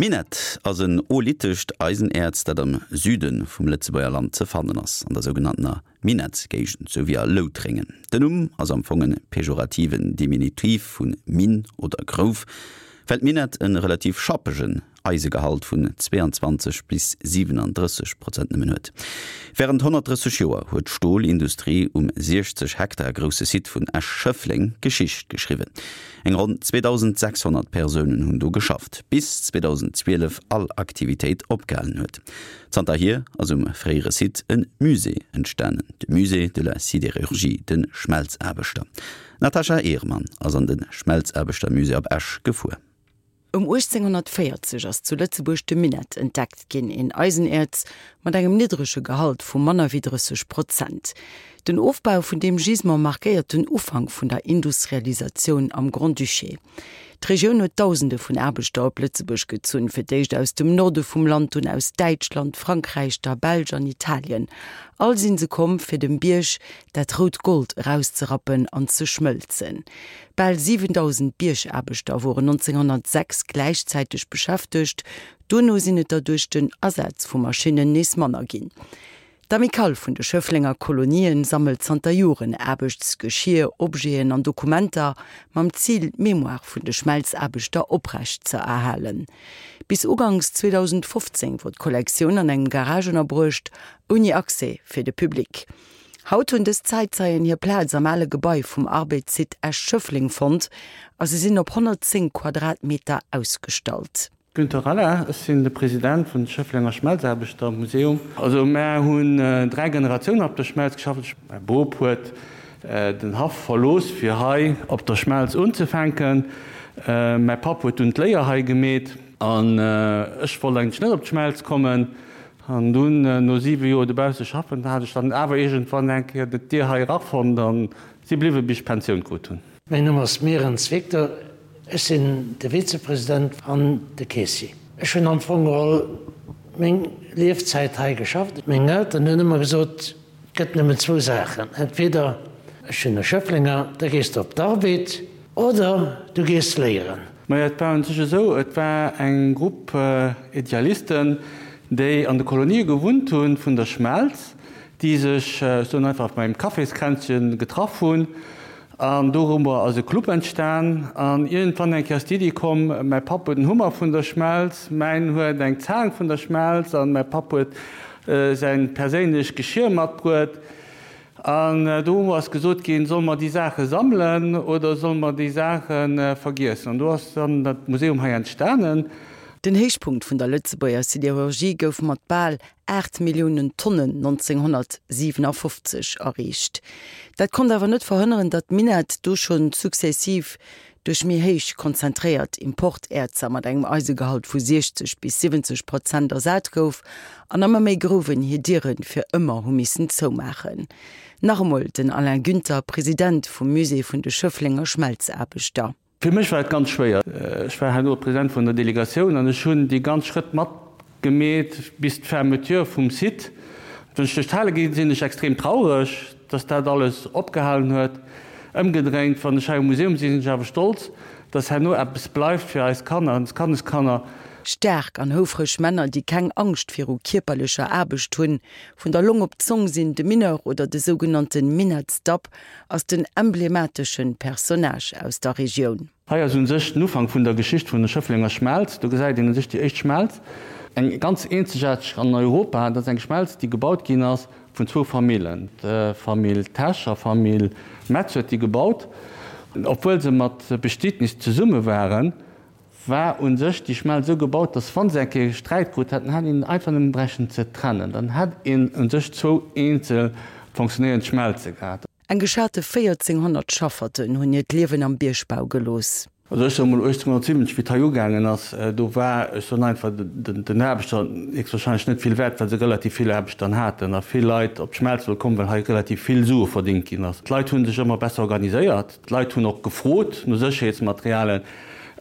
Minett ass en oolithescht Eisenäerz, dat am Süde vum Lëtzebuerger Land ze fannen ass, an der sougenanntener Minettsgéigend souwéi a Loutréngen. Den Numm ass am Fong e pejorativen Diminutiv vu Minn oder Grouf, well d'Minett e relativ schappegen Eisegehalt vun 22 bis 37 Prozent nëmmen huet. Wärend 130 Joer huet d'Stolindustrie um 60 Hektar grousse Site vun Esch-Schëffleng Geschicht geschriwwen. Eng ronn 2.600 Persounen hunn do geschafft, bis 2012 all Aktivitéit opgehalen huet. Zanterhier ass um fréiere Site e Musée entstanen, de Musée de la Sidérurgie, de Schmelzaarbechter. D'Natasha Ehrmann ass an de Schmelzaarbechtermusée op Esch gefuer. Ëm 1840 ass zu Lëtzebuerg de Minett entdeckt ginn, een Eisenäerz mat engem niddrege Gehalt vu manner wéi 30 Prozent. Den Ofbau vun deem Gisement markéiert den Ufank vun der Industrialisatioun am Grand-Duché. D'Regioun huet Dausende vun Aarbechter op Lëtzebuerg gezunn, fir d'éischt aus dem Norde vum Land, dunn aus Däitschland, Frankräich, der Belsch an Italien. All sinn se komm, fir dem Bierg dat rout Gold erauszerappen an ze schmëlzen. Bal 7.000 Biergaarbechter woren 1906 gläichzäiteg beschäftegt, dono sinn et der duerch den Asaz vu Maschinnen nees manner ginn. D'Amicale vun de Schëfflenger Kolonien sammelt zanter Joren Aarbechtsgeschier, Objeten an Dokumenter mam Zil, d'Mémoire vun de Schmelzaarbechter oprecht ze erhalen. Bis uganks 2015 wor d'Kollektioun an engem Garage ënnerbruecht, ouni Accès fir de Public. Haut hunn dës Zäitzeien hir Plaz am ale Gebai vum Arbed-Site Esch-Schëffleng fonnt a se sinn op 110 Quadratmeter ausgestallt. Günter Ralla, Ech sinn de President vun Schëfflenger Schmelzaarbechtermuseum. Also mär hunn 3 Generatiounen op der Schmelz geschafft. Mäi Bop huet den Haff verlooss fir hei op der Schmelz unzefänken. Mäi Papp huet dunn d'Léier hei gemeet an ech wollt eigentlech net op d'Schmelz kommen. An dunn, no 7 Joer dobausse schaffen, hat ech dann awer iergendwann eng Kéier d'Dier hei erafonnt an si bliwwe bis ech Pensioun krut hunn. Mäin Numm ass Merens Victor, ech sinn de Vizepresident an de Keessier. Ech hunn am Fong geholl meng Liefzäit hei geschafft. Meng Elteren hunn ëmmer gesot, Et gëtt nëmmen zwou Saachen, entweder, ech sinn e Schëfflenger, da gees de op d'Arbed oder du gees léieren. Majo, et war un sech esou, et war eng Grupp Idealisten, déi an de Kolonië gewunnt hunn vun der Schmelz, déi sech, ech soen einfach, beim Kaffiskränzchen getraff hunn. An dorummer ass e Club entstan. An iergendwann eng Kéier ass d'Iddi komm, mäi Papp huet en Hummer vun der Schmelz, mäin huet eng Zaang vun der Schmelz an mäi Papp huet säin perséinlecht Geschir matbruet. An do ass gesot ginn, solle mer déi Saache sammelen oder solle mer déi Saache vergiessen? An do ass dann dat Museum hei entstanen. Den Héichpunkt vun der Lëtzebuerger Siderurgie gouf mat bal 8 Milliounen Tonnen 1957 erreecht. Dat konnt awer net verhënneren, datt d'Minett do schonn successiv duerch méi héich konzentréiert Importäerzer mat engem Eisegehalt vu 60 bis 70 Prozent ersat gouf an ëmmer méi Grouwen hir Diere fir ëmmer hu missen zoumaachen. Nach emol den Alain Günther, President vum Musée vun de Schëfflenger Schmelzaarbechter. Fir mech war et ganz schwéier. Ech war herno President vun der Delegatioun an ech hunn déi ganz Schrëtt matgemeet bis d'Fermeture vum Site. Wann ech duerch d'Hale ginn, sinn ech extrem traureg, dass dat alles opgehalen huet. Ëmgedréint, wann ech hei um Museum sinn, sinn ech awer stolz, dass herno eppes bleift fir eis Kanner an Kandeskanner. Staark an houfreg Männer, déi keng Angscht viru kierperlecher Aarbecht hunn, vun der Long op d'Zong sinn, de Mineur oder de sougenannte Minettsdapp, ass den emblemateschen Personnage aus der Regioun. Hei ass un sech den Ufank vun der Geschicht vun der Schëfflenger Schmelz. Do gesäit een un sech déi éischt Schmelz, eng ganz eenzegaarteg an Europa. Dat ass eng Schmelz, déi gebaut ginn ass vun zwou Famillen, d'Famill Tesch a Famill Metz huet déi gebaut. Obwuel se mat Bestietnis zesumme waren, war un sech déi Schmelz esou gebaut, dass wann se eng Kéier Sträit krut hätten, hätt een einfach nëmmen bräichten ze trennen, dann hätt een un sech zwou eenzel fonctionnéierend Schmelze gehat. Eng geschate 1400 Schafferten hunn hiert Liewen am Biergbau gelooss. Also ech soe mol 1870, wéi et hei ugaangen ass, do war, ech soen einfach, den Aarbechter héchstwahrscheinlech net vill wäert, well se relativ vill Aarbecht dann haten a vill Leit op d'Schmelz wëll kommen, well hei relativ vill Sue verdingt ginn ass. D'Leit hu sech ëmmer besser organiséiert. D'Leit hunn och gefrot no Sécherheetsmaterialen.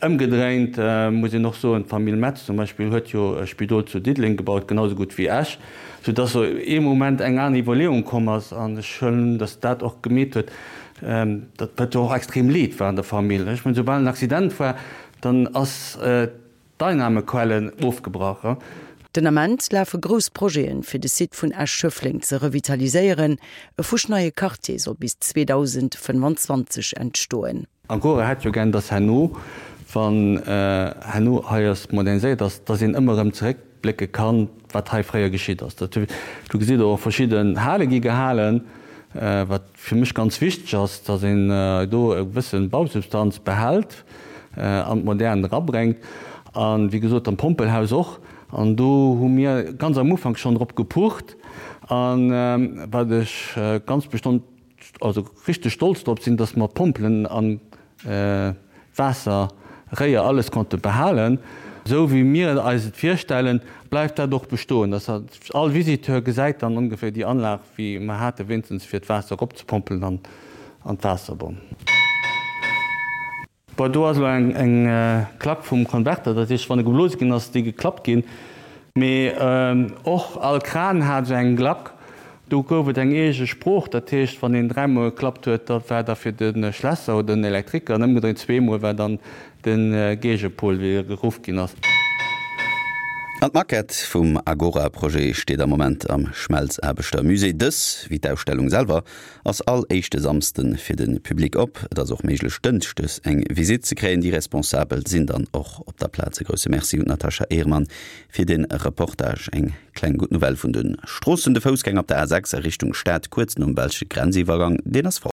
Ëmgedréint muss een och soen, d'Famill Metz zum Beispill huet jo e Spidol zu Diddeleng gebaut, genau esou gutt wéi Esch, soudass sou ee Moment eng aner Iwwerleeung komm ass. An ech huelen un, datt dat och gemeet huet, datt wat jo och extrem Leed war an der Famill. Ech mengen, soubal en Accident war, dann ass. D'Einnahmequellen ofgebrach. Den Ament lafe grouss Projeten, fir de Site vun Esch-Schëffleng ze revitaliséieren. E fuschneie Quartier soll bis 2025 entstoen. Agora hätt jo gär, dass herno, wann herno hei ass moderniséiert ass, dass een ëmmer erëm zeréckblécke kann, wat hei fréier geschitt ass. Dat, do gesitt Der och, verschidden Hale gi gehalen, wat fir mech ganz wichteg ass, dass een do e gewësse Bausubstanz behält an d'Modern erabréngt. A wéi gesot, am Pompelhaus och. An do hu mir ganz am Ufank schonn drop gepucht. A wat ech ganz bestonn, also richteg stolz drop sinn, dass mer d'Pompelen an d'Waasser, Réier, alles konnte behalen. Esou wéi mir eis et virstellen, bleift dat och bestoen, dass all Visiteur gesäit dann ongeféier déi Anlag wéi mer hate wéinstens fir d'Waasser eropzepompelen an an d'Waasserbonn. Bon, do ass elo eng Klack vum Konverter, dat heescht wann e geblose ginn ass, déi geklappt ginn. Mee och all Kran hat esou eng Glack. Do gouf et eng eege Sprooch, dat heescht, wann een dräimol geklappt huet, da war da fir de Schlässer oder den Elektriker, an ëmgedréint zweemol war dann de Géigepol, wéi e geruff ginn ass. An d'Maquette vum Agora-Projet steet am Moment am Schmelzaarbechtermusée. Dës, wéi d'Ausstellung selwer, ass all éischte Samsde fir de Public op. Et ass och méiglech dënschdes eng Visitt ze kréien. Déi Responsabel sinn dann och op der Plaz. E grousse Merci un d'Natasha Ehrmann fir de Reportage. Eng kleng gutt Nouvelle vun de Stroossen, De Foussgänger op der A 6 a Richtung Stad kuerz nom belsche Grenziwwergang, deen ass fort.